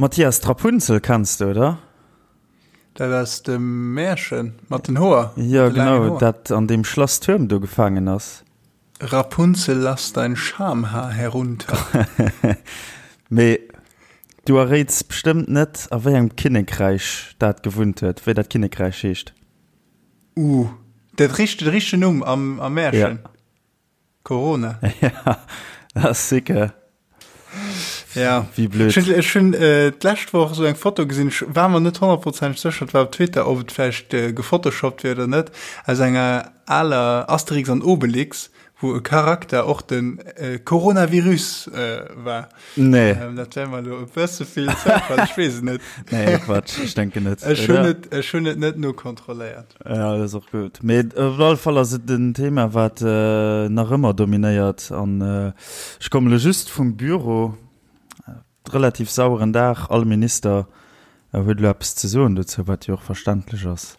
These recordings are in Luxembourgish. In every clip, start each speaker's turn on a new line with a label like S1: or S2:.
S1: Mathias, d'Rapunzel kenns de, oder?
S2: Dat aus dem Märchen mat den Hoer?
S1: Jo, genau, dat an deem Schlass-Tuerm do gefaangen ass.
S2: Rapunzel, lass dein Schamhaar herunter.
S1: Mee du erréits bestëmmt net, a wéi engem Kinnekräich dat gewunnt huet, wéi dat Kinnekräich heescht?
S2: Uh, dat richt, de richtegen Numm am, am Märchen? Ja. Corona.
S1: Ja, dat ass sicker.
S2: Ja.
S1: Wéi blöd.
S2: Ech hunn, ech hunn äh, d'lescht Woch esou eng Foto gesinn, ech war mer net honnertprozenteg sécher, et war op Twitter, ob et vläicht äh, gefotoshoppt wier oder net, aus enger aler Asterix an Obelix, wou e Charakter och den äh, Coronavirus äh, war.
S1: Nee.
S2: Ähm, dat wär mer elo e bësse vill Zoufall, ech weess et net.
S1: Nee, Quatsch, ech denken net.
S2: Ech hunn et, ech hunn et net nokontrolléiert.
S1: Ja, dat ass och gutt. Mee op alle Fall ass et en Thema, wat nach ëmmer dominéiert. An ech kommen elo just vum Büro, relativ saueren Dag, all Minister huet elo eppes ze soen dozou, wat jo och verständlech ass.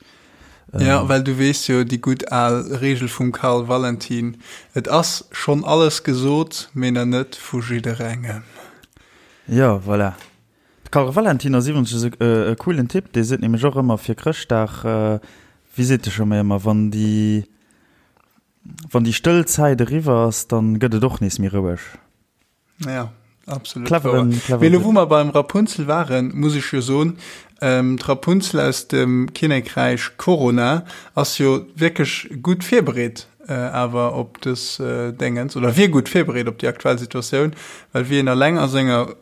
S2: Ja, well du weess jo déi gutt al Reegel vum Karl Valentin, Et ass schonn alles gesot, mee na net vu jidderengem.
S1: Jo, voilà. De Karl Valentin ass iwwregens e coolen Typ, dee seet nämlech och ëmmer fir Chrëschtdag, wéi seet e scho méi ëmmer, wann déi, wann déi stëll Zäit eriwwer ass, dann gëtt et och nees méi roueg.
S2: Ja, absolut
S1: Cleveren,
S2: wouer.
S1: cleveren
S2: Mee elo
S1: Typ.
S2: wou mer beim Rapunzel waren, muss ech jo soen, d'Rapunzel aus dem Kinnekräich Corona ass jo wierklech gutt virbereet awer op dës Déngens, oder wier gutt virbereet op déi aktuell Situatioun, well wéi een eleng a senger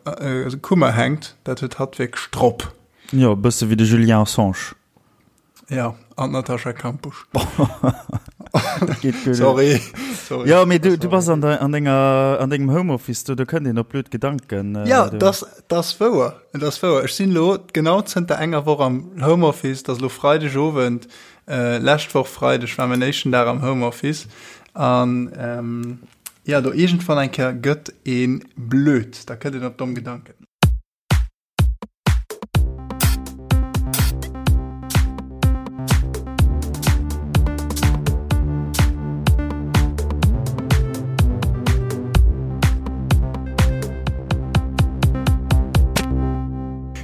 S2: Kummer hänkt, dat huet hatt wierklech drop.
S1: Jo, e bësse wéi de Julien Assange.
S2: Ja, an d'Natascha Kampusch.
S1: Dat geet guer net.
S2: Sorry, sorry.
S1: Jo, mee du, du bass an, de, an, denger, an dengem Homeoffice do, do kënnt een op blöd Gedanken.
S2: Äh, ja, das, das wouer. Das wouer. Ech sinn lo genau zënter enger Woch am Homeoffice, das lo Freidegowend. Lescht Woch Freideg war mäin éischten Dag am Homeoffice an jo, do iergendwann eng Kéier gëtt ee blöd, da kënnt een op domm Gedanken.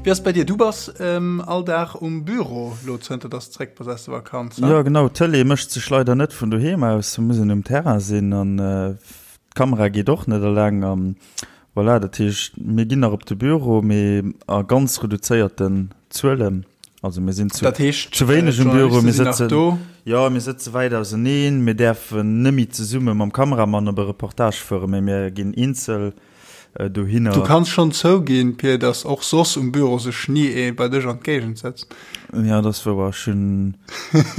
S2: Wéi ass et bei dir? Du bass all Dag um Büro lo zënter dass de zréck bass aus der Vakanz,
S1: he? Jo genau, d'Tëlee mécht sech leider net vun doheem aus, muss een um Terrain sinn an d'Kamera geet och net eleng an voilà, dat heescht mir ginn nach op de Büro, mee a ganz reduzéierten Zuelen, also mir sinn zu
S2: Dat heescht
S1: zu wéineg um Büro,
S2: d'Journaliste
S1: mir
S2: sinn nach
S1: sëtzen
S2: do?
S1: jo mir sëtze wäit auseneen, mir däerfen neméi zesumme mam Kameramann op e Reportage fueren, mee mir ginn eenzel dohinner.
S2: Du kanns schonn zouginn, Pir, dass och soss um Büro sech ni ee bei dech an d'Géigend sëtzt.
S1: Ja, dat ass wouer. Ech hunn,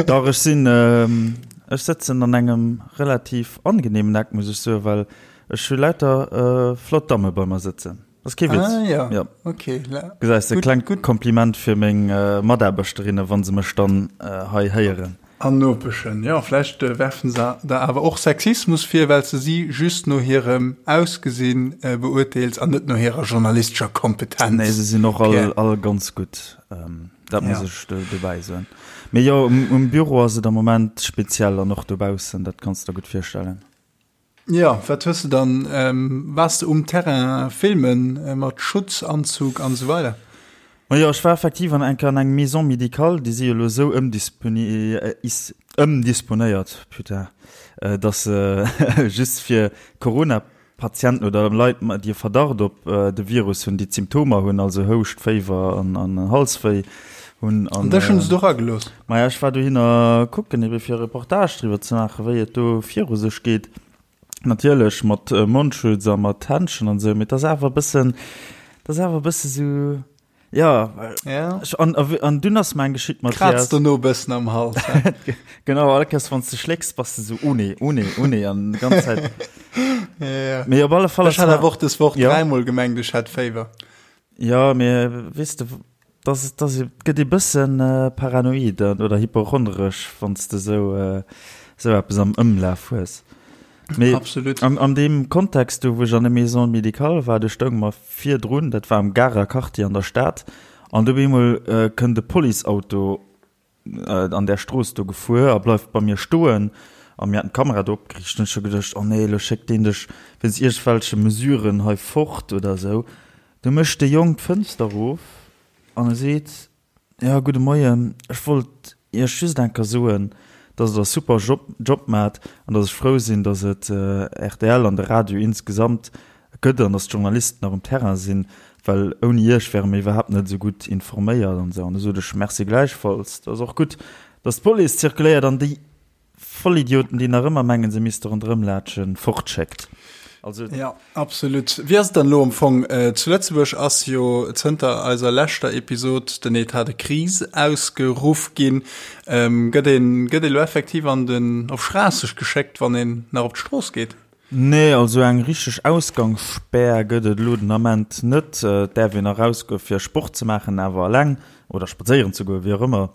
S1: dach, ech sinn, ech sëtzen an engem relativ angenehmen Eck, muss ech soen, well ech hu lauter flott Damme bei mer sëtzen. Ass kee Witz.
S2: Ah ja,
S1: ja.
S2: okay.
S1: Gesäis de, klengt Kompliment fir meng Mataarbechterinnen, wa se mech dann hei héieren.
S2: An Nopeschen, jo, vläicht werfen se der awer och Sexismus vir, well s de si just no hirem Ausgesinn beurteels an net no hirer journalistescher Kompetenz.
S1: Nee, se sinn och all, all ganz gutt, dat muss ech dobäi soen. Mee jo, um Büro ass et am Moment speziell an och dobaussen, dat kanns de der gutt virstellen.
S2: Jo, wat hues de dann, waars de um Terrain filmen mat Schutzanzug an esou weider?
S1: Majo, ech war effektiv an enker an engem Maison médicale, déi si jo elo esou ëmdisponéiert, putain, datt se just fir Corona-Patienten oder Leit, déi e Verdacht op de Virus hunn, déi d'Symptomer hunn, also Houscht, Féiwer an Halswéi hunn.
S2: An dech hunn se do eragelooss?
S1: Maja, ech war dohinner kucken, ebe fir e Reportage driwwer ze maachen, wéi et do viru sech geet. Natierlech mat Mondschutz a mat Händschen an esou, mee et ass awer e bëssen, et ass awer e bësse sou, jo.
S2: Ja.
S1: Ech, an, an dunn ass mer eng geschitt, Mathias.
S2: Krazt dono e bëssen am Hals, he?
S1: Genau, all Kéiers wann s de schlécks, bass de sou, oh nee, oh nee, oh nee, an déi ganz Zäit.
S2: Ja, ja.
S1: Mee op alle Fall
S2: Ech
S1: ass
S2: hat
S1: mer.
S2: awer och dës Woch
S1: Ja.
S2: dräimol gemengt, ech hätt Féiwer.
S1: Jo, mee weess de, dass, dass et gëtt ee bëssen paranoid oder hypochondresch, wann s de esou, esou eppes am Ëmlaf hues. Mee
S2: Absolut.
S1: an, an deem Kontext do, wou ech an der Maison médicale war, do stounge mer virdrun, dat war am Garer Quartier an der Stad, an do op eemol kënnt e Policeauto an där Strooss do gefuer a bleift bei mir stoen a mir haten d'Kamera do opgeriicht. Hunn ech scho geduecht, oh nee, elo schéckt deen dech wéinst iergendwelche Mesuren hei fort oder esou. Du mécht de Jong d'Fënster erof an e seet, Jo, gudde Moien, ech wollt Iech just eng Kéier soen, dass Der e super Job maacht an dass ech frou sinn, dass et rtl an de Radio insgesamt gëtt an dass d'Journalisten nach um Terrain sinn, well ouni Iech wäre mir iwwerhaapt net esou gutt informéiert an esou. An du sot ech, Merci gläichfalls, et ass och gutt, dass d'Police zirkuléiert an déi Vollidioten, déi nach ëmmer mengen, se misste ronderëm laatschen, fortschéckt.
S2: Also. Ja, absolut. Wéi ass et dann elo am Fong? Zu Lëtzebuerg ass jo zënter eiser leschter Episod den Etat de crise ausgeruff ginn. Gëtt een, gëtt ee lo effektiv an den, op Schraasseg geschéckt, wann een nach op d'Strooss geet?
S1: Nee, also eng richteg Ausgangsspär gëtt et elo den Ament net. Et däerf een nach erausgoe fir Sport ze maachen, awer eleng, oder spadséieren ze goen, wéi och ëmmer.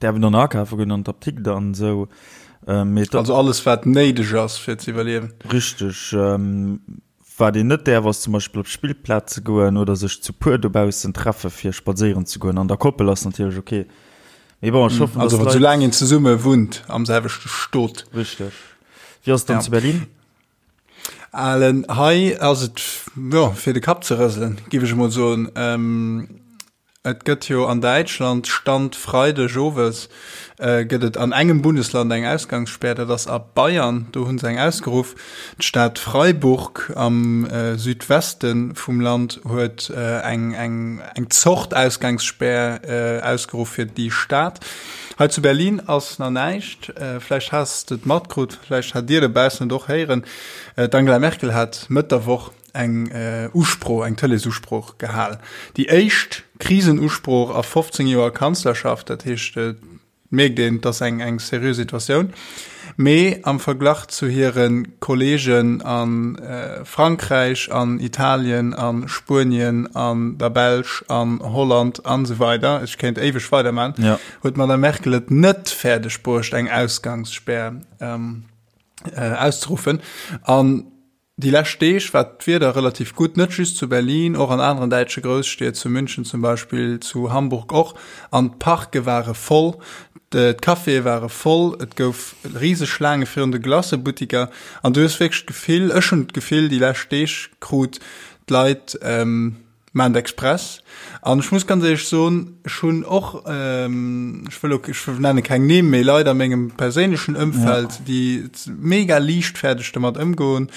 S1: Därf een dann akafe goen an d'Apdikt an esou.
S2: Mee also alles wat néideg ass fir ze iwwerliewen.
S1: Richteg. Wat een net däerf ass zum Beispill op d'Spillplaz ze goen oder sech zu puer dobaussen treffe fir spadséieren ze goen. An der Koppel ass natierlech ok.
S2: Mee bon, ech hoffen, dass d'Leit. Also soulaang een zesumme wunnt am selwechte Stot.
S1: Richteg. Wéi ass et dann zu Berlin?
S2: Alen, hei ass et, jo, fir de Kapp ze rëselen, giff ech emol soen. Et gëtt jo an Däitschland, Stand Freideg owes, gëtt et an engem Bundesland eng Ausgangsspär, dat ass a Bayern, do hu se eng ausgeruff. D'Stad Freiburg am Südweste vum Land huet eng eng Zort Ausgangsspär ausgeruff fir déi Stad. Hei zu Berlin ass nach näischt, vläicht has de et matkrut, vläicht hat Dir dobaussen et och héieren, d'Angela Merkel hat Mëtt der Woch eng Usprooch, eng Tëleesusprooch gehal. Déi éischt Krisenusprooch a 15 Joer Kanzlerschaft. Dat heescht, et mierkt een, et ass eng, eng seriö Situatioun. Mee am Verglach zu hire Kolleegen a Frankräich, an Italien, a Spuenien, an der Belsch, an Holland an esou weider, ech kéint éiweg weiderman, huet d'Madame Merkel et net fäerdeg bruecht, eng Ausgangsspär auszeruffen. An Déi lescht Deeg war d'Wieder relativ gutt, net just zu Berlin, och an aneren däitsche Grousstied, zu München zum Beispill, zu Hamburg och. An d'Parke ware voll, d'Caféë ware voll, et gouf riseg Schlaange virun de Glacëbuttiker. An du hues wierklech d'Gefill, ech hunn d'Gefill déi lescht Deeg krut, d'Leit, Maachen et express. An ech muss ganz éierlech soen, ech hunn och, ech wëll elo, ech nenne keng Nimm, mee Leit a mengem perséinlechen Ëmfeld, déi mega liichtfäerdeg domat ëmgoen,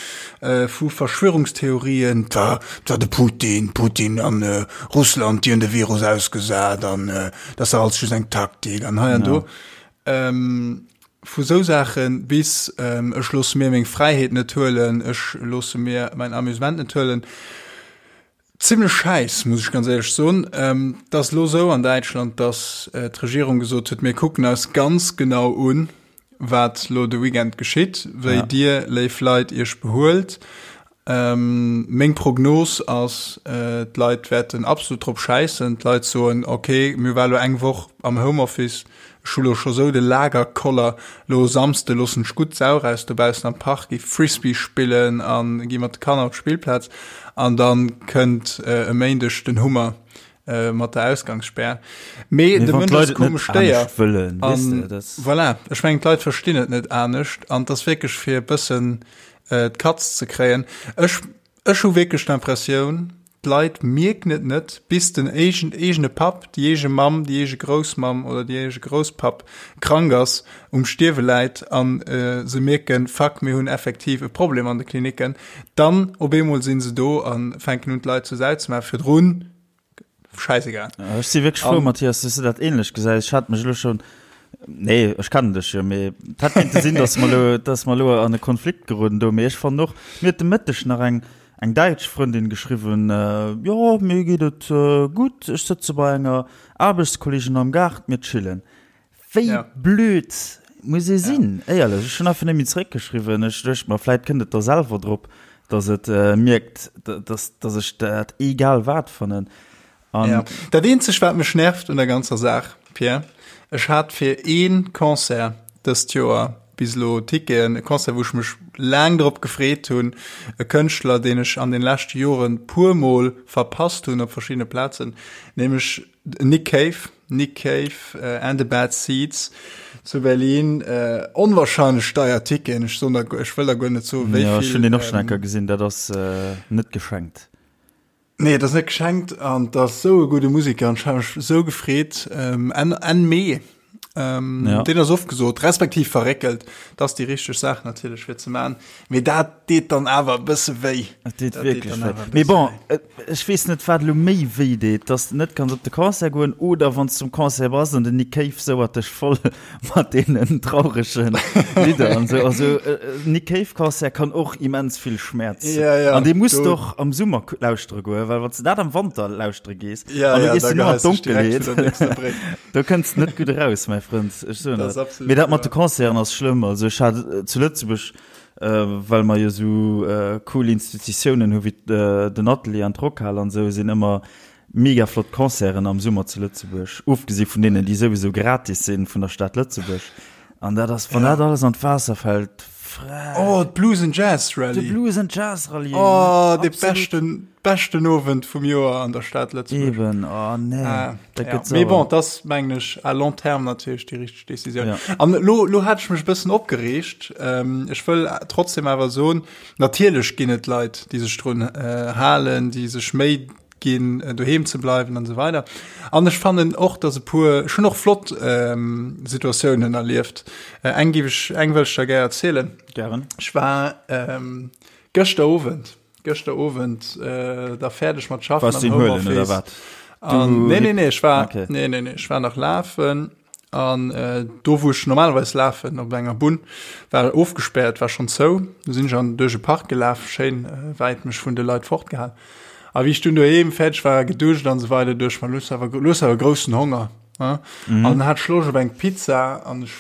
S2: vu Verschwörungstheorien, et war, et war de Putin, Putin an Russland, déi hunn de Virus ausgesat an dat ass dach alles just eng Taktik an hei an do. Vu sou Saache bis ech loosse mir meng Fräiheet net huelen, ech loosse mir mäin Amusement net huelen. Zimlech schäiss, muss ech ganz éierlech soen. Et ass elo esou an Däitschland, datt d'Regierung gesot huet, mir kucken eis ganz genau un, wat elo de Weekend geschitt, wéi Dir, léif Leit, Iech behuelt. Meng Prognos ass, d'Leit wäerten absolut drop schäissen. D'Leit soen, ok, mir war elo eng Woch am Homeoffice, ech hu lo scho sou de Lagerkoller, lo e Samsde loossen ech gutt d'Sau raus dobaussen am Park, gi Frisbee spillen a gi mat de Kanner op d'Spillplaz. An da kënnt e Méindeg den Hummer mat der Ausgangsspär. Mee de Mënsch ass e komescht Déier. An voilà, ech mengen d'Leit verstinn et net anescht an et ass wierklech fir e bëssen d'Katz ze kréien. Ech, ech hu wierklech d'Impressioun, d'Leit mierken et net, bis den eegen, eegene Papp, déi eege Mamm, déi eege Groussmamm oder déi eege Grousspapp krank ass, um Stierwe läit a se mierken, fuck, mir hunn effektiv e Problem an de Klinicken. Dann op eemol si se do a fänken un, d'Leit zur Sau ze maachen. Virdrun Scheißegal.
S1: Ech si wierklech frou, Mathias, dass du dat ähnlech gesäis. Ech hat mech elo schon, nee, ech kennen dech jo, mee et hätt kéinte sinn, dass mer elo, dass mer elo an e Konflikt geroden do. Mee ech fannen och, mir huet de Mëtteg nach eng, eng däitsch Frëndin geschriwwen, Jo, mir geet et gutt, ech sëtze bei enger Aarbechtskolleegin am Gaart, mir chillen. Wéi ja. blöd muss ee sinn, ja. éierlech. Ech hunn einfach net méi zeréckgeschriwwen. Ech duecht mer, vläit kënnt et da selwer drop, dass et äh, mierkt, dass, dass ech dat egal wat fannen.
S2: An ja. Dat eenzeg, wat mech nervt un der ganzer Saach, Pierre, ech hat fir ee Concert dëst Joer bis elo Ticketen, e Concert, wou ech mech laang drop gefreet hunn, e Kënschtler, deen ech an den leschte Joren puermol verpasst hunn op verschiddene Plazen, nämlech Nick Cave, Nick Cave and the Bad Seeds zu Berlin. Äh, onwahrscheinlech deier Ticketen. Ech soen der, ech wëll der guer net soen,
S1: wéi ja, vill. Ech hunn deen och schon eng Kéier gesinn, dat ass äh, net geschenkt.
S2: Nee, et ass net geschenkt an et ass sou e gudde Musiker an ech hat mech sou gefreet. Ähm, Enn, Enn Mee. Ähm, ja. Den ass ofgesot, respektiv verréckelt. Dat ass déi richteg Saach natierlech fir ze man. Mee dat deet dann awer e bësse wéi.
S1: Dat deet wierklech wéi. Mee bon, äh, ech weess net, wat elo méi wéi deet, dass de net kanns op de Concert goen oder wann s zum Concert bass an den Nick Cave souert dech voll mat deenen trauregen Lidder an sou. Also äh, Nick Cave Concert kann och immens vill Schmerz.
S2: Ja, ja,
S1: an dee muss du och am Summer lauschtere goen, well wann du dat am Wanter lauschtere gees,
S2: ja,
S1: an du
S2: ja,
S1: gees
S2: da
S1: du nur an
S2: geheist dich direkt
S1: d'Donkelheet.
S2: vun der nächster Bréck.
S1: Do kënns net gutt eraus, mäi Frënd. Ech soen
S2: Dat ass
S1: dat.
S2: absolut
S1: Mee dat mat de
S2: wahr.
S1: Concerten ass schlëmm. Also ech hat äh, zu Lëtzebuerg, äh, well mer jo sou äh, cool Institutiounen hu wéi äh, den Atelier an d'Rockhal an sou, sinn ëmmer Mega flott Concerten am Summer zu Lëtzebuerg, ofgesi vun deenen, déi souwisou gratis sinn vun der Stad Lëtzebuerg. An dat ass, wann dat alles an d'Waasser fält, frech.
S2: Oh, d'Blues and Jazz Rallye.
S1: De Blues and Jazz Rallye.
S2: Oh, de beschten, beschten Owend vum Joer an der Stad Lëtzebuerg.
S1: Eben, oh nee.
S2: Ah,
S1: dat
S2: ja.
S1: gëtt
S2: Mee
S1: sauer.
S2: bon, dat ass, mengen ech, à long terme natierlech déi richteg Decisioun.
S1: Ja.
S2: An lo, lo hat ech mech e bëssen opgereegt. Ähm, ech wëll trotzdem awer soen, natierlech ginn et Leit, déi sech drun äh, halen, déi sech Méi ginn, doheem ze bleiwen an esou weider. An ech fannen och, dass e puer, ech hunn och flott ähm, Situatiounen erlieft. Äh, eng géif ech, eng wëll ech der gär erzielen.
S1: Gären.
S2: Ech war ähm, gëschter Owend, gëschter Owend äh, da fäerdeg mat schaffen
S1: Warst du
S2: am
S1: ihn huelen oder
S2: Homeoffice.
S1: wat?
S2: An,
S1: Du
S2: nee, nee, nee, ech war,
S1: Okay.
S2: nee, nee, nee, ech war nach lafen. An do wou ech normalerweis lafen, op enger Bunn, war ofgespäert, war schonn zou. Du sinn ech an duerch e Park gelaf, schéin wäit mech vun de Leit fortgehal. A wéi ech dunn doheem fäerdeg war, geduscht an esou weider, duecht ech mer, lo hues awer, lo hues awer groussen Honger, ne? An hat ech Loscht op eng Pizza an ech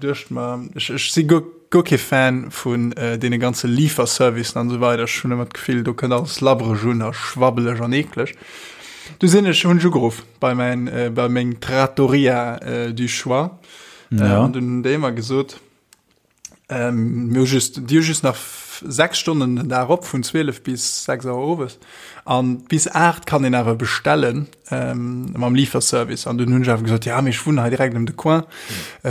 S2: duecht mer, ech, ech si guer, guer kee Fan vun deene ganze Liiferservicen an esou weider. Ech hunn ëmmer d'Gefill, do kënnt alles labbereg un a schwabbeleg an eekleg. Du sinn ech, hunn ech ugeruff bei mäin, bei meng Trattoria du choix.
S1: Ja.
S2: An dunn hunn déi mer gesot, mir hu just, déi hu just nach 6 Stonnen den Dag op, vun 12 bis 6 Auer owes. An bis 8 kann een awer bestellen mam Liiferservice. An dunn hunn ech awer gesot, ja, mee ech wunnen hei direkt ëm de Coin,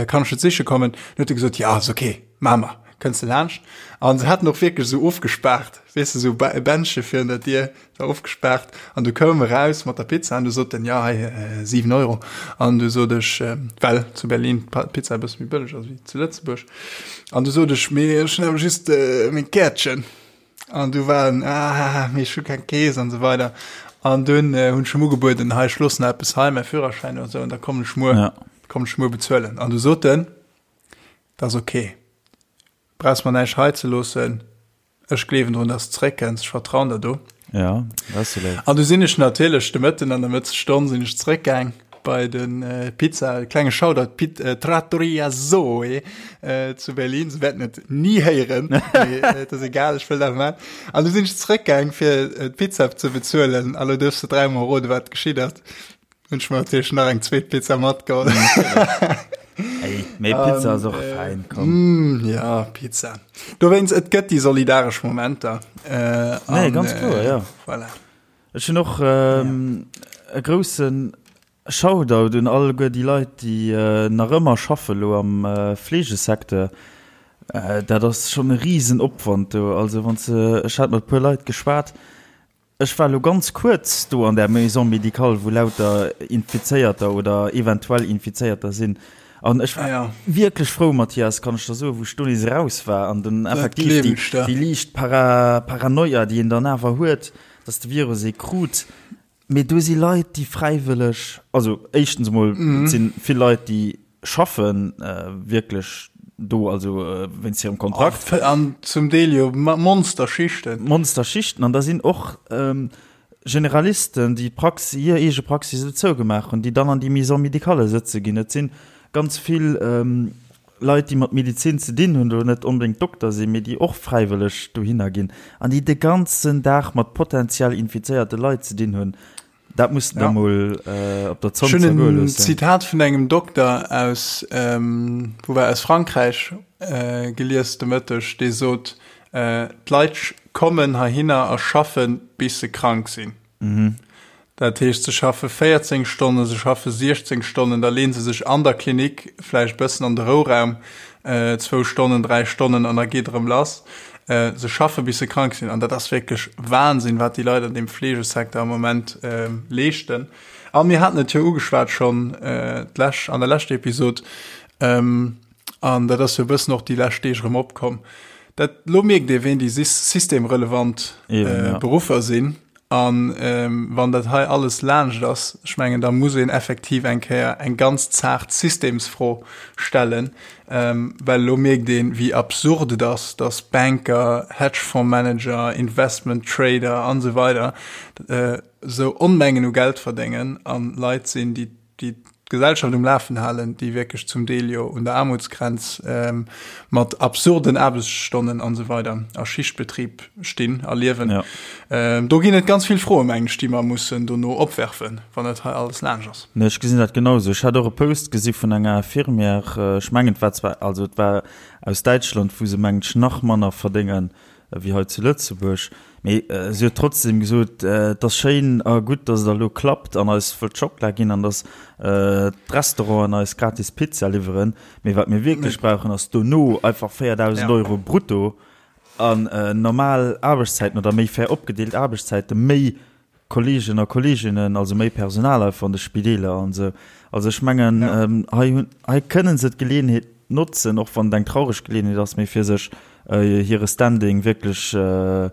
S2: kann ech et siche kommen? Dann huet e gesot, ja, ass ok, maache mer, kënns de laanscht. An se haten och wierklech esou ofgespaart, weess de, esou e Bändche virun der Dier, war ofgespaart. An du koum e raus mat der Pizza an du sot en, ja, hei 7 Euro. An du sot ech, well zu Berlin d'Pizza e bësse méi bëlleg ass wéi zu Lëtzebuerg, an du sot ech, mee ech hunn awer just meng Käertchen. An du war en, ah, mee ech hu keng Kees an esou weider. An dunn hunn ech em ugebueden, hei, ech loossen eppes hei, mäi Führerschäin oder esou, an da kommen ech muer,
S1: Ja.
S2: kommen ech muer bezuelen. An du sot en, dat ass ok, brauchs mer näischt hei ze loossen, Ech gleewen drun, dass de zeréckkënns. Ech vertrauen der do.
S1: Ja, dat ass jo léif.
S2: An du sinn ech natierlech de Mëtten an der Mëttesstonn sinn ech zeréckgaang bei de Pizza, e klenge Shoutout, Pit, Trattoria Zoe zu Berlin. Se wäerten et ni héieren, mee et ass egal, ech wëll dat awer maachen. An du sinn ech zeréckgaang, fir d'Pizza ze bezuelen. A lo duerfs de dräimol roden, wat geschitt ass. Hunn ech mer natierlech nach eng zweet Pizza matgeholl.
S1: Ey, mee Pizza ass och fein, komm.
S2: Mm, ja, Pizza. Dowéinst, et gëtt déi solidaresch Momenter.
S1: Äh, nee, ganz kloer, ja.
S2: Voilà.
S1: Ech hunn och ähm, e groussen Shoutout un alleguer déi Leit, déi äh, nach ëmmer schaffe lo am äh, Fleegesecteur. Äh, dat ass schonn e Risenopwand do. Also wann se, ech hat mat e puer Leit geschwat, Ech war elo ganz kuerz do an där Maison médicale, wou lauter Infizéierter oder eventuell Infizéierter sinn. An ech war wierklech frou, Mathias, kann ech der soen, wou ech do nees eraus war an dann effektiv déi liicht Paranoia, déi een dann awer huet, dass de Virus ee krut. Mee do si Leit, déi fräiwëlleg, also éischtens emol, et si vill Leit, déi schaffen wierklech do, also wéinst hirem Kontrakt.
S2: An zum Deel jo Monsterschichten.
S1: Monsterschichten. An da sinn och Generalisten, déi d'Praxis, hir eege Praxis elo zougemaach hunn, déi dann an déi Maison médicale sëtze ginn. Et si ganz vill Leit, déi mat Medezin ze dinn hunn, elo net onbedéngt Dokter sinn, mee déi och fräiwëlleg dohinner ginn an déi de ganzen Dag mat potentiell infizéierte Leit ze dinn hunn. Dat muss de der mol op der Zong
S2: Ech hunn
S1: zergoe
S2: en
S1: loossen.
S2: Zitat vun engem Dokter aus, wou war, aus Frankräich gelies de Mëtteg, dee sot, D'Leit kommen heihinner a schaffen, bis se krank sinn. Dat heescht, se schaffe 14 Stonnen, se schaffe 16 Stonnen, da leeën se sech an der Klinik vläicht e bëssen an de Rouraum, zwou Stonnen, dräi Stonnen, an da geet erëm lass. Se schaffe bis se krank sinn an dat ass wierklech Wahnsinn, wat déi Leit an deem Fleegesecteur am Moment leeschten. A mir haten et jo ugeschwat schonn d'lech an der leschter Episod, an dat ass jo e bëssen och déi lescht Deeg erëm opkomm, dat elo mierkt ee ween déi systemrelevant Beruffer sinn. An wann dat hei alles laanscht ass, ech mengen, da muss een effektiv eng Kéier eng ganz zaart Systemsfro stellen, well elo mierkt een, wéi absurd et ass, dass Banker, Hedgefondsmanager, Investment Trader an esou weider esou Onmengen u Geld verdéngen a Leit sinn, déi déi d'Gesellschaft um Lafen halen, déi wierklech zum Deel jo un der Aarmutsgrenz mat absurden Aarbechtsstonnen an esou weider a Schichtbetrib stinn a liewen. Ja. Do ginn et ganz vill Froen, mengen ech, déi mer mussen dono opwerfen, wann dat hei alles laanscht ass.
S1: Nee, ech gesinn dat genau esou. Ech hat och e Post gesi vun enger Infirmière, ech mengen et war zwar, also et war aus Däitschland, wou se mengen ech nach manner verdéngen wéi hei zu Lëtzebuerg, mee si huet trotzdem gesot, et ass schéin a gutt, datt et elo klappt an eis wëllt Schockela ginn an datt d'Restauranten eis gratis Pizza liwweren, mee wat mir wierklech brauchen, ass dono einfach 4.000 Euro brutto an normal Aarbechtszäiten oder méi fair opgedeelt Aarbechtszäiten, méi Kolleegen a Kolleeginnen, also méi Personal einfach an de Spideeler an esou. Also ech mengen, hei hunn, hei kënnen se d'Geleeënheet notzen, och wann et eng traureg Geleeënheet ass, mee fir sech hire Standing wierklech ze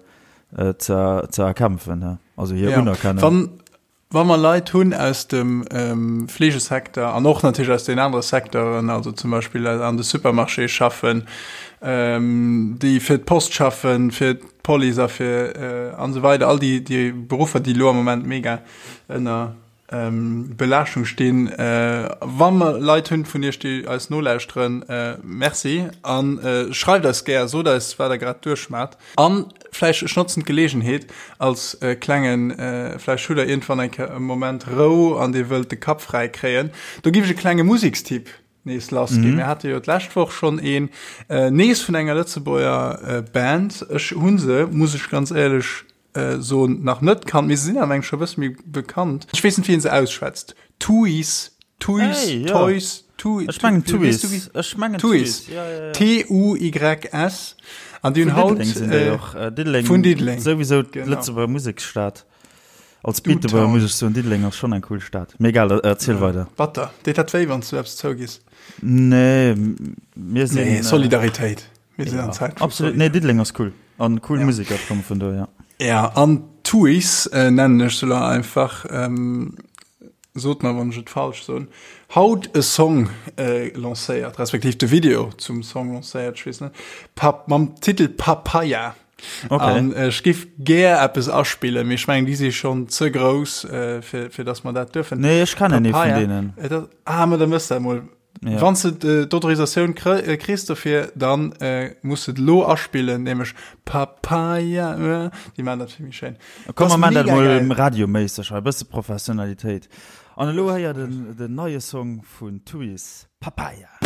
S1: ze erkämpfen, also hir Unerkennung.
S2: Wann, wa mer Leit hunn aus dem Fleegesecteur an och natierlech aus den anere Secteuren, also zum Beispill an de Supermarchéë schaffen, déi fir d'Post schaffen, fir d'Police a fir an esou weider, all déi déi Beruffer, déi elo am Moment mega ënner Belaaschtung stinn. Wa mer Leit hunn vun iech, déi eis nolauschteren, Merci a schreift eis gär, sot eis, wat der grad duerchmaacht. An vläicht, ech notzen d'Geleegenheet als klengen, vläicht hutt der iergendwann eng Kéier e Moment Rou an dir wëllt de Kapp fräi kréien, do giff ech e klenge Musekstipp nees lass ginn. Mir hate jo d'lescht Woch schonn een nees vun enger Lëtzebuerger Band. Ech hu se, muss ech ganz éierlech soen, nach net kannt, mee se sinn awer eng scho bësse méi bekannt. Ech weess net, wéi een se ausschwätzt. Tuys, Tuys,
S1: Hey, ja.
S2: Toys, Tu,
S1: Ech mengen
S2: Tu, weess
S1: Tuys.
S2: du wéi?
S1: Ech mengen
S2: Tuys.
S1: Tuys. Ja, ja, ja.
S2: T-U-Y-S. An déi hunn
S1: Vun
S2: haut
S1: Diddeleng sinn déi och. Diddeleng,
S2: vun Diddeleng.
S1: souwisou
S2: Genau.
S1: d'Lëtzebuerger Museksstad. Als Beetebuerger muss ech soen, Diddeleng ass schonn eng cool Stad. Mee egal, erziel ja, weider.
S2: Batter. Deet dat wéi, wann s du eppes zougiss?
S1: Nee, mir sinn.
S2: Nee, Solidaritéit.
S1: Mir sinn an Zäit. Absolut. Nee, Diddeleng ass cool. An cool ja. Musiker komme vun do,
S2: ja. Ja, an Tuis äh, nennen ech se lo einfach. Ähm, sot mer, wann ech et falsch soen. Haut e Song äh, lancéiert, respektiv de Video zum Song lancéiert, ech weess net. Pap, mam Titel Papaya.
S1: Okay.
S2: An ech giff gär eppes aspillen, mee ech mengen déi si schonn ze grouss, äh, fir, fir dass mer dat duerfen.
S1: Nee, ech kennen ee vun deenen.
S2: Et ass, ah, ma da mëss dat mol.
S1: Ja.
S2: Wann s de d'Autorisatioun kr kriss dofir, dann äh, muss de et lo aspillen, nämlech Papaya, äh, déi maan dat vill méi schéin.
S1: Komm,
S2: Das
S1: mer maan dat
S2: mega
S1: mol
S2: geil.
S1: radioméisseg hei, e bësse Professionalitéit. An elo héiert en den neie Song vun Tuys, Papaya.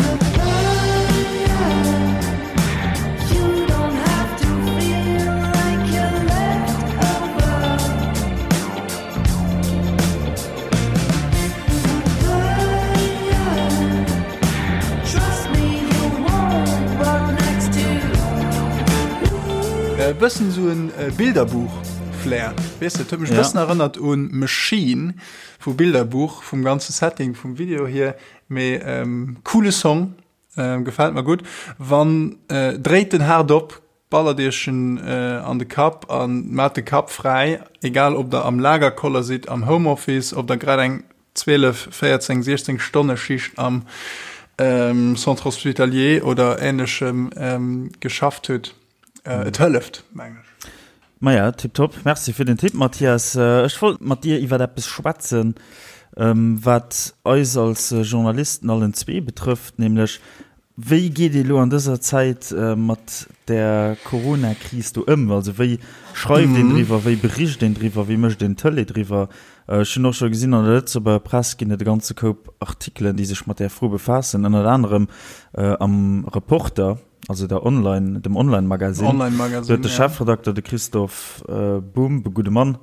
S2: E bëssen esou en Bilderbuch-Flair, weess de, et huet mech e bëssen erënnert un Machine vu Bilderbuch, vum ganze Setting vum Video hier. Mee coole Song, gefällt mer gutt. Wann dréit den haart op, ballert iech en an de Kapp an maat de Kapp fräi, egal ob der am Lagerkoller sidd, am Homeoffice, ob der grad eng 12, 14, 16 Stonne Schicht am Centre Hospitalier oder ähnlechem geschafft hutt. Et hëlleft, mengen ech.
S1: Maja, tiptop. Merci fir den Tipp, Mathias. Ech wollt mat dir iwwer eppes schwätzen, wat eis als Journalisten allen zwee betrëfft, nämlech, Wéi geet ee lo an dëser Zäit mat der Corona-Kris do ëm? Also wéi schreift een driwwer, wéi bericht een driwwer, wéi mécht een Tëlee driwwer? Ech hunn och scho gesinn, an der Lëtzebuerger Press ginn et e ganze Koup Artikelen, déi sech mat där Fro befaassen, ënnert anerem am Reporter. also der Online, dem Online-Magazine.
S2: Online-Magazine,
S1: Do huet de
S2: ja.
S1: Chefredakter, de Christophe Bumb, e gudde Mann,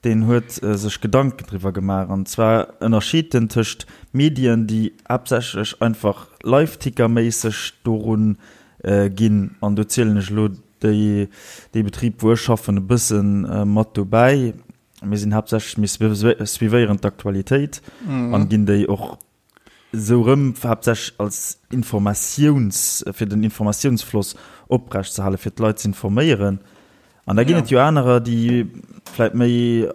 S1: deen huet sech Gedanken driwwer gemaach. An zwar ënnerscheet en tëscht Medien, déi haaptsächlech einfach Live-Ticker-méisseg dorun ginn, an do zielen ech elo. déi, dee Betrib, wou ech schaffen, e bësse mat dobäi. Mir sinn haaptsächlech, mir suivéieren d'Aktualitéit an ginn déi och esou erëm, haaptsächlech als Informatiouns, fir den Informatiounsfloss oprecht ze halen, fir d'Leit ze informéieren. An da ginn et jo anerer, déi vläicht méi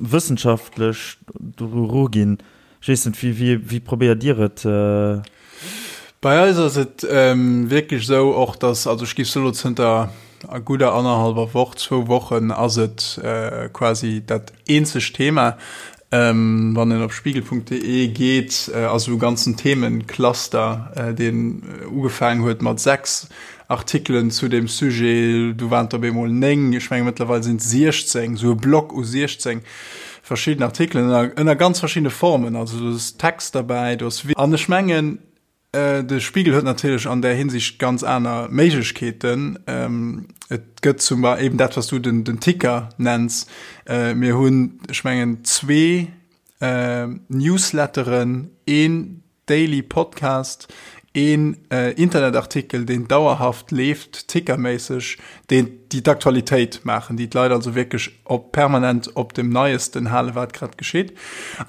S1: wëssenschaftlech doru eruginn. Ech weess net, wéi, wéi, wéi probéiert Dir et?
S2: Bei eis ass et wierklech esou och, dass, also ech géif soen, elo zënter gudder annerhallwer Woch, zwou Wochen ass et quasi dat eenzegt Thema. Wann een op spiegel.de geet, ass esou e ganzen Themencluster, deen ugefaangen huet mat 6 Artikelen zu deem Sujet, du waren et op eemol 9, ech menge mëttlerweil sinn et 16, esou e Block u 16 verschidden Artikelen ënner, ënner ganz verschiddene Formen. Also do ass Text derbäi, do ass. An ech mengen, De Spiegel huet natierlech an där Hinsicht ganz aner Méiglechkeeten. Et gëtt zum Beispill eben dat, wat s du den, den Ticker nenns. Mir hunn, ech mengen, zwee Newsletteren, een Daily Podcast, een Internetartikel, deen dauerhaft leeft, tickerméisseg, deen, déi d'Aktualitéit maachen, déi d'Leit also wierklech op permanent op dem Neiesten halen, wat grad geschitt.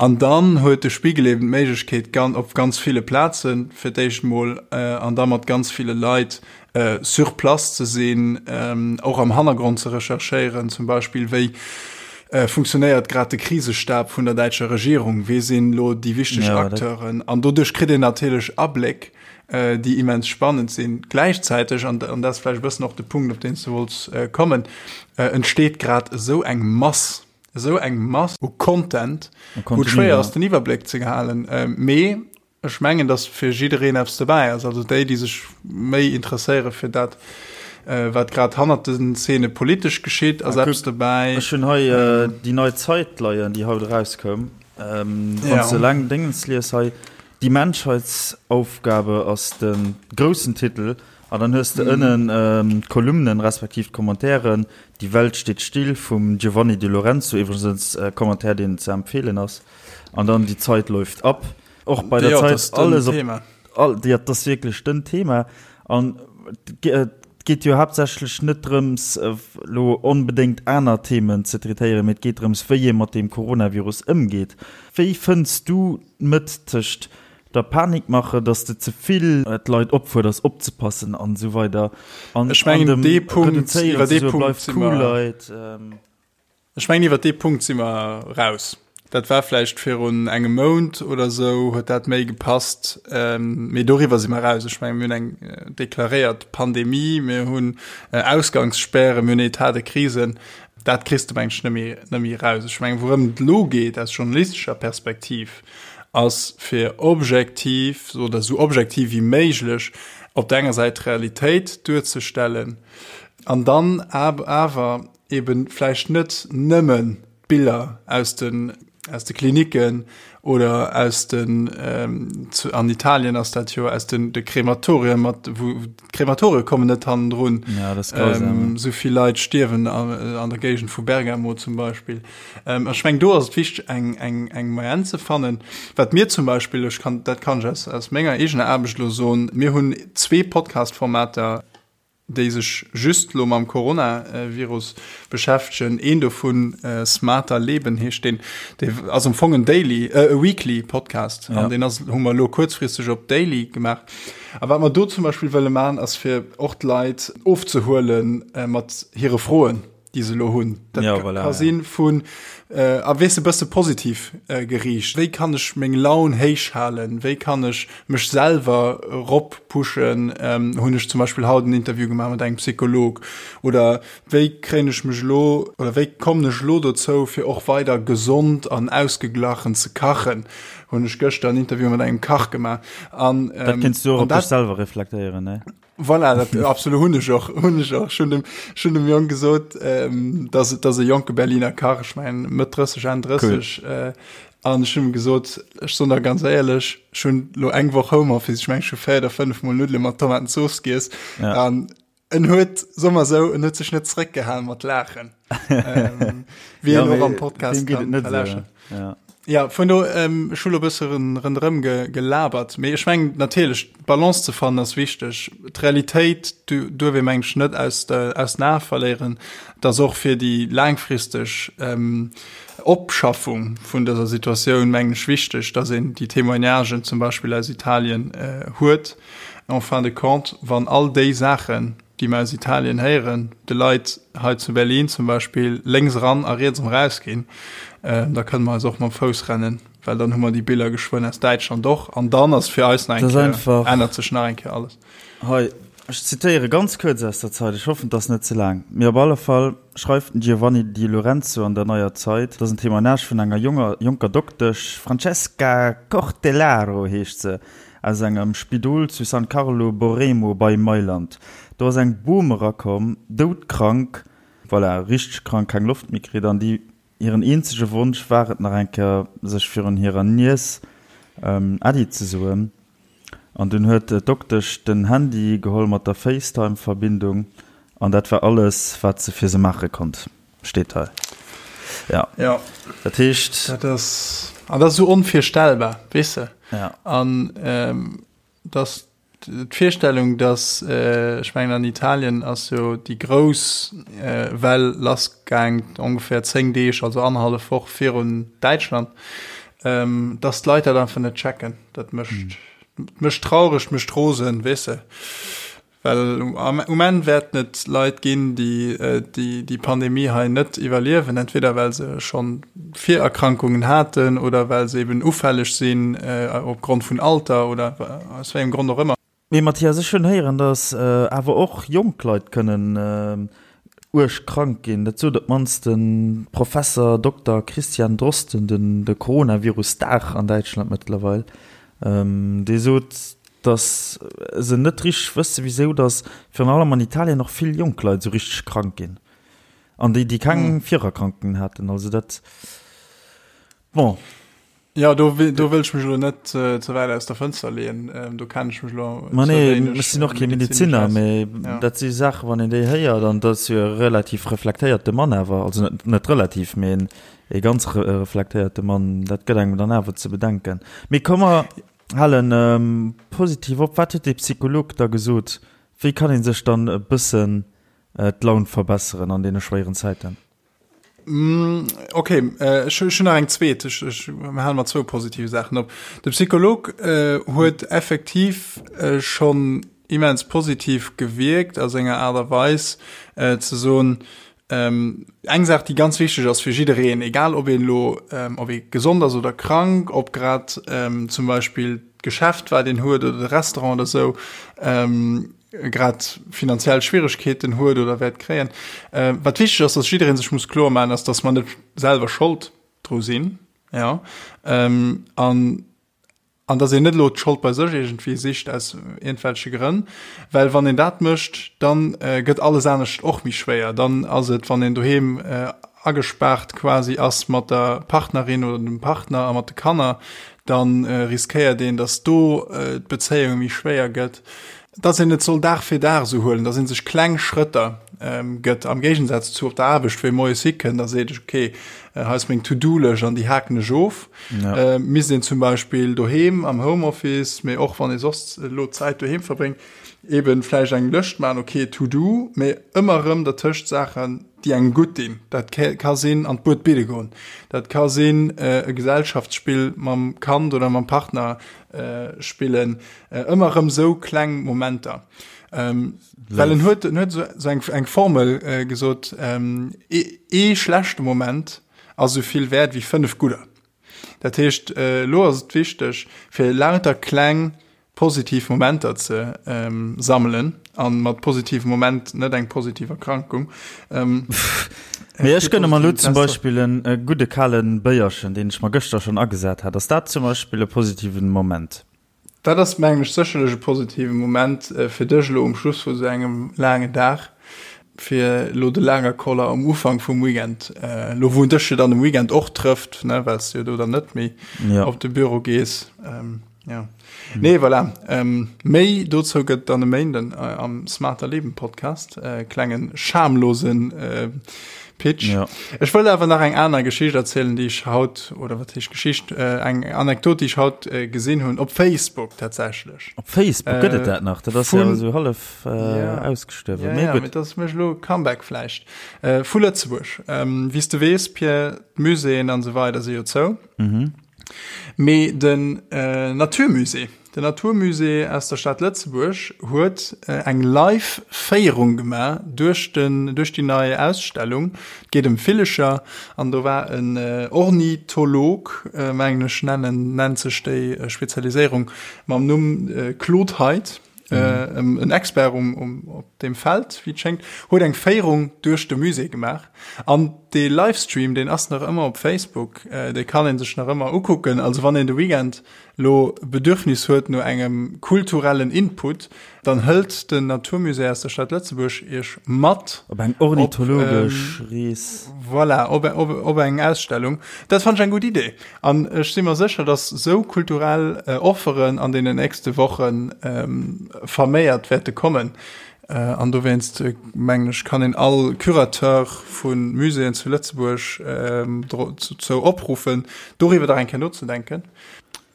S2: An dann huet de Spiegel eben d'Méiglechkeet, gan op ganz ville Plazen fir d'éischt mol an da mat ganz ville Leit sur place ze sinn, och am Hannergrond ze recherchéieren, zum Beispill wéi funktionéiert grad de Krisestab vun der däitscher Regierung, wee sinn elo déi wichteg Acteuren. An doduerch kritt een natierlech Abléck, déi immens spannend sinn. Gläichzäiteg, an dat ass vläicht e bëssen och de Punkt, op deen s du wollts kommen, entsteet grad esou eng Mass, esou eng Mass u Content, wou et schwéier ass, den Iwwerbléck ze halen. Mee ech mengen, datt fir jiddereen eppes dobäi ass. Also déi, déi sech méi interesséiere fir dat, wat grad hannert den Zeene politesch geschitt, ass eppes dobäi.
S1: Ech hunn hei déi nei Zeit leien, déi haut erauskoum. Wann s de eleng Déngens lies hei, Die Menschheitsaufgabe ass de groussen Titel an dann hues de ënnen d'Kolumnen respektiv d'Commentairen, Die Welt steht still vum Giovanni Di Lorenzo, iwwregens e Commentaire deen ze empfeelen ass, an dann Die Zeit läuft ab. Och bei der Zeit alles op, all, jo, dat ass wierklech den Thema an et geet jo haaptsächlech net drëms elo onbedéngt aner Themen ze traitéieren, mee et geet drëms wéi ee mat deem Coronavirus ëmgeet. Wéi fënns du D'Mëtt tëscht der Panikmache, dass de ze vill d'Leit opfuerders opzepassen an esou weider
S2: an Ech mengen, dem dee Punkt, Reduzéieren iwwer ze dee soe Punkt bleift si cool mer, Leit. Ech mengen iwwer dee Punkt si mer raus. Dat war vläicht virun engem Mount oder esou, huet dat méi gepasst, mee doriwwer si mer raus. Ech mengen, mir hunn eng deklaréiert Pandemie, mir hunn Ausgangsspären, mir hunn Etat de crise. Dat kriss de, meng ech, net méi, net méi raus. Ech mengen, wourëm et elo geet aus journalistescher Perspektiv, ass fir objektiv oder esou objektiv wéi méiglech op der enger Säit d'Realitéit duerzestellen an dann awer eben vläicht net nëmmen d'Biller aus den, aus de Klinicken oder aus den, ähm, zu, an Italien ass dat jo, aus den de Krematorien, mat, wou d'Krematorie kommen net hannendrun.
S1: Ja, das ist grausam.
S2: Ähm, so vill Leit stierwen an, an der Géigend vu Bergamo zum Beispill. Ähm, ech meng, do ass et wichteg, eng, eng, eng Moyenne ze fannen. Wat mir zum Beispill, ech kann, dat kann ech aus, aus menger eegener Aarbecht elo soen, mir hunn zwee Podcast-Formater, déi sech just elo mam Coronavirus beschäftegen. Een dovun, Smarter Leben heescht deen, dee ass am Fong en Daily, e Weekly Podcast an deen ass, hu mer elo kuerzfristeg op Daily gemaach. A wat mer do zum Beispill wëlle maachen, ass fir och d'Leit ofzehuele mat hire Froen. déi se elo hunn. Dat ja, voilà, ka sinn vun äh, a weess e bësse positiv äh, geriicht. Wéi kann ech meng Laun héich halen? Wéi kann ech mech selwer rop pushen? Ähm, hunn ech zum Beispill haut en Interview gemaach mat engem Psycholog. Oder wéi kréien ech mech elo oder wéi kommen ech elo dozou, fir och weider gesond an ausgeglachen ze kachen? Hunn ech gëschter en Interview mat engem Kach gemaach.
S1: An, ähm, dat kinns du och op dech selwer reflektéieren, ne?
S2: Voilà, dat absolut hunn ech och hunn ech och schon dem schon dem Jong gesot ähm, dass dass e jonke Berliner Kach ech mein Mëtt 30 Enn 30 cool. äh, an ech hunn gesot ech soen der ganz éierlech ech hunn lo eng Woch Homeoffice ech meng ech hu 4 oder 5 mol Nuddele mat Tomatenzooss giess ja. an en huet soe mer sou en huet sech net zréckgehalen mat laachen ähm, wéi ja, en och am Podcast kann verlauschteren.
S1: Ja.
S2: Ja, vun do, ech hu lo e bësse ronderëm gelabert, mee ech mengen natierlech, d'Balance ze fannen ass wichteg. D'Realitéit duerf ee mengen ech net aus der, aus den Ae verléieren, dass och fir déi laangfristeg Opschaffung vun dëser Situatioun mengen ech wichteg, dass een déi Témoignagen zum Beispill aus Italien huet. En fin de compte, wann all déi Saachen, déi mer aus Italien héieren, de Leit hei zu Berlin zum Beispill lénks eran a riets erëm erausginn, da kënne mer eis och mam Fouss rennen, well dann hu mer déi Biller geschwënn aus Däitschland och an dann ass fir eis nach eng Kéier, ännert sech nach eng Kéier alles.
S1: Hei, ech zitéiere ganz kuerz aus der Zeit, ech hoffen, et ass net ze laang, mee op alle Fall schreift den Giovanni Di Lorenzo an der Neuer Zeit, et ass en Témoignage vun enger jonger, jonker Doktesch, Francesca Cortellaro heescht se, Aus engem Spidol zu San Carlo Borremo bei Mailand. Do ass eng Bom erakomm, doudkrank, voilà, richteg krank, keng Loft méi kritt an déi hiren eenzege Wonsch war et nach eng Kéier sech virun hirer Niess Äddi ze soen. An dunn huet d'Doktesch den Handy geholl mat der FaceTime-Verbindung an dat war alles wat se fir se maache konnt. Steet hei.
S2: Ja.
S1: Ja.
S2: Dat heescht. Dat ass, an dat ass esou onvirstellbar, weess de?
S1: Ja.
S2: An ähm, dass d'Virstellung, dass, äh, ech mengen an Italien ass jo déi grouss äh, Well lassgaang ongefähr 10 Deeg, also annerhallef Woch virun Däitschland, ähm, dass d'Leit dat einfach net checken. Dat mécht, mm. mécht traureg, mécht rosen, weess de? Well um Enn wäerten et Leit ginn, déi déi Pandemie hei net iwwerliewen, entweder well se scho Virerkrankungen haten oder well se eben ufälleg sinn opgrond vun Alter oder aus wéi engem Grond och ëmmer.
S1: Mee Mathias, ech hunn héieren, datt awer och jonk Leit kënnen uerg krank ginn. Dat sot op d'mannst de Professer Dokter Christian Drosten, den de Coronavirus-Star an Däitschland mëttlerweil. Dee sot, dass se net richteg wësse wisou dass virun allem an Italien och vill jonk Leit esou richteg krank ginn an déi déi keng Virerkrankungen haten. Also dat, bon.
S2: Jo, do do wëll ech mech elo net ze wäit aus der Fënster leeën, do kennen ech mech elo
S1: Ma nee, ech sinn och kee Medezinner, mee dat si Saachen, wann een déi héiert, an dat ass jo e relativ reflektéierte Mann awer, also net net relativ, mee en e ganz reflektéierte Mann, dat gëtt engem dann awer ze bedenken. Mee komm mer Halen positiv op. Wat huet dee Psycholog da gesot? Wéi kann ee sech dann e bëssen d'Laun verbesseren an deene schwéieren Zäiten?
S2: Ok, ech hunn nach eng zweet. Ech hale mat zwou positive Saachen op. De Psycholog huet effektiv schonn immens positiv gewierkt a senger Aart a Weis ze soen, Eng Saach, déi ganz wichteg ass fir jiddereen, egal ob een elo, ob ee gesond ass oder krank, ob grad zum Beispill d'Geschäft, wat een huet, oder de Restaurant oder esou, grad finanziell Schwieregkeeten huet oder wäert kréien. Wat wichteg ass, dass jidderee sech muss kloer maachen, ass, dass mer net selwer Schold dru sinn, jo, an An dass een net elo d'Schold bei sech iergendwéi sicht aus iergendwelche Grënn, well wann een dat mécht, da gëtt alles anescht och méi schwéier. Dann ass et, wann een doheem agespaart quasi ass mat der Partnerin oder dem Partner a mat de Kanner, da riskéiert een, dass do d'Bezéiung méi schwéier gëtt. Dass een et soll Dag fir Dag esou huelen, dass ee sech kleng Schrëtter gëtt, am Géigensaz zu op der Aarbecht, wou ee moies hikënnt a seet, ok, hei ass meng To-do-Lëscht an déi haken ech of. Ja. Misst een zum Beispill doheem am Homeoffice, mee och wann ee soss elo Zäit doheem verbréngt, eeben vläicht eng Lëscht maachen, ok, To-do, mee ëmmer erëm dertëscht Saachen, déi engem gutt dinn. Dat ka sinn an d'Bued bidde goen, dat ka sinn e Gesellschaftsspill mam Kand oder mam Partner spillen, Ëmmer erëm sou kleng Momenter. Ähm, well en huet, en huet so, so eng, eng Formel äh, gesot, ähm, ee, ee schlechte Moment ass sou vill wäert wéi fënnef gudder. Dat heescht, äh, lo ass et wichteg, fir lauter kleng positiv Momenter ze ähm, sammelen an mat positivem Moment net eng positiv Erkrankung.
S1: Ähm, Mee ech gënne mer lo zum Beispill en e gudde kale Béierchen, deen ech mer gëschter schonn agesat hat. Ass dat zum Beispill e positiven Moment?
S2: Dat ass, mengen ech, sécherlech e positive Moment fir dech elo um Schluss vu sou engem laangen Dag, fir elo de Lagerkoller um Ufank vum Weekend, elo wou en dech jo dann um Weekend och trëfft, ne, well s de jo do dann net méi op de Büro gees. Jo. Nee, voilà. Méi dozou gëtt dann e Méinden am Smarter Leben Podcast, klenge schamlose. Pitch. Ja. Ech wëll awer nach eng aner Geschicht erzielen, déi ech haut, oder wat heescht Geschicht, äh, eng Anekdot, déi ech haut äh, gesinn hunn, op Facebook tatsächlech.
S1: Op Facebook gëtt et dat nach? Dat ass ja esou hallef äh, ja. ausgestuerwen.
S2: Ja, ja, mee dat ass mécht elo Comeback vläicht. Äh, vu Lëtzebuerg. Ähm, Wéi s de weess, Pierre, d'Muséeën an esou weider si jo zou. Mhm. Mee den äh, Naturmusée, Den Naturmusée aus der Stad Lëtzebuerg huet eng live Féierung gemaach duerch den duerch déi nei Ausstellung. Et geet ëm Villecher an do war en Ornitholog, mengen ech nennen nennt sech déi Spezialiséierung, mam Numm Claude Heidt, en Expert um um op deem Feld, wéi et schéngt, huet eng Féierung duerch de Musée gemaach. An dee Livestream, deen ass nach ëmmer op Facebook, dee kann ee sech nach ëmmer ukucken. Also wann een de Weekend lo Bedürfnis huet no engem kulturellen Input, dann hëlt den Naturmusée aus der Stad Lëtzebuerg iech mat
S1: op eng ornithologesch Rees.
S2: Voilà, op, op, op eng Ausstellung. Dat fannt ech eng gutt Idee. An ech si mer sécher, dass sou kulturell Offeren an deenen nächste Woche verméiert wäerte kommen. An dowéinst, mengen ech, kann een all Curateur vu Muséeën zu Lëtzebuerg dozou opruffen, doriwwer dach eng Kéier nozedenken.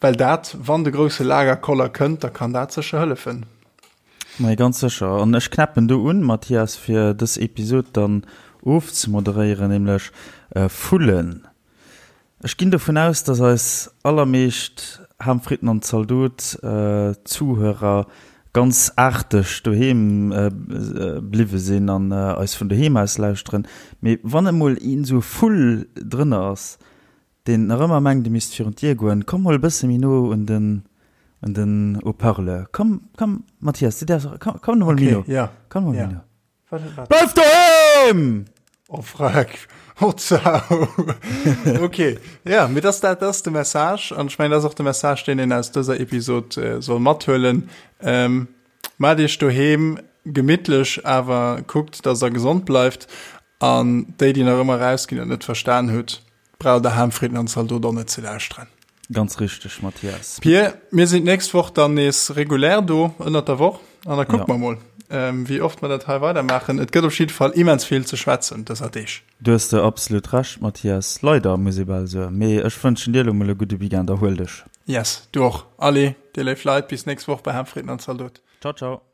S2: Well dat, wann de grousse Lagerkoller kënnt, da kann dat sécher hëllefen.
S1: Mee ganz sécher. An ech knäppen do un, Mathias, fir dës Episod dann ofzemoderéieren, nämlech Vullen. Ech ginn dovun aus, dass eis allermeescht Ham, Fritten an Zaldot Zuhörer ganz aarteg doheem bliwwe sinn an eis vun doheem aus lauschteren. Mee wann emol een esou e Vull drënner ass, deen nach ëmmer mengt e misst virun d'Dier goen, komm mol e bësse méi no un den un den Haut-parleur. Komm, komm Mathias, du däerfs och, komm, komm mol méi no, komm mol méi no. Bleif doheem!
S2: Oh freck, oh zau. Ok, ja, mee dass dat ass de Message an ech mengen dat ass och de Message deen een aus dëser Episod soll mathuelen. Maacht iech doheem gemittlech, awer kuckt dass der gesond bleift an déi déi nach ëmmer erausginn an et net verstan hutt, Braucht der Ham, Fritten an Zaldot och net ze lauschteren.
S1: Ganz richteg, Mathias.
S2: Pir, mir sinn d'nächst Woch dann nees regulär do ënnert der Woch an da kucke mer mol, wéi oft mer dat hei weidermaachen. Et gëtt op jidde Fall immens vill ze schwätzen dëser Deeg.
S1: Du hues de absolut Recht, Mathias. Leider, muss ee bal soen. Mee ech wënschen dir elo mol e gudde Weekend. Erhuel dech.
S2: Yes, du och. Allez, dir léif Leit, bis nächst Woch bei Ham, Fritten an Zaldot.
S1: Ciao, ciao.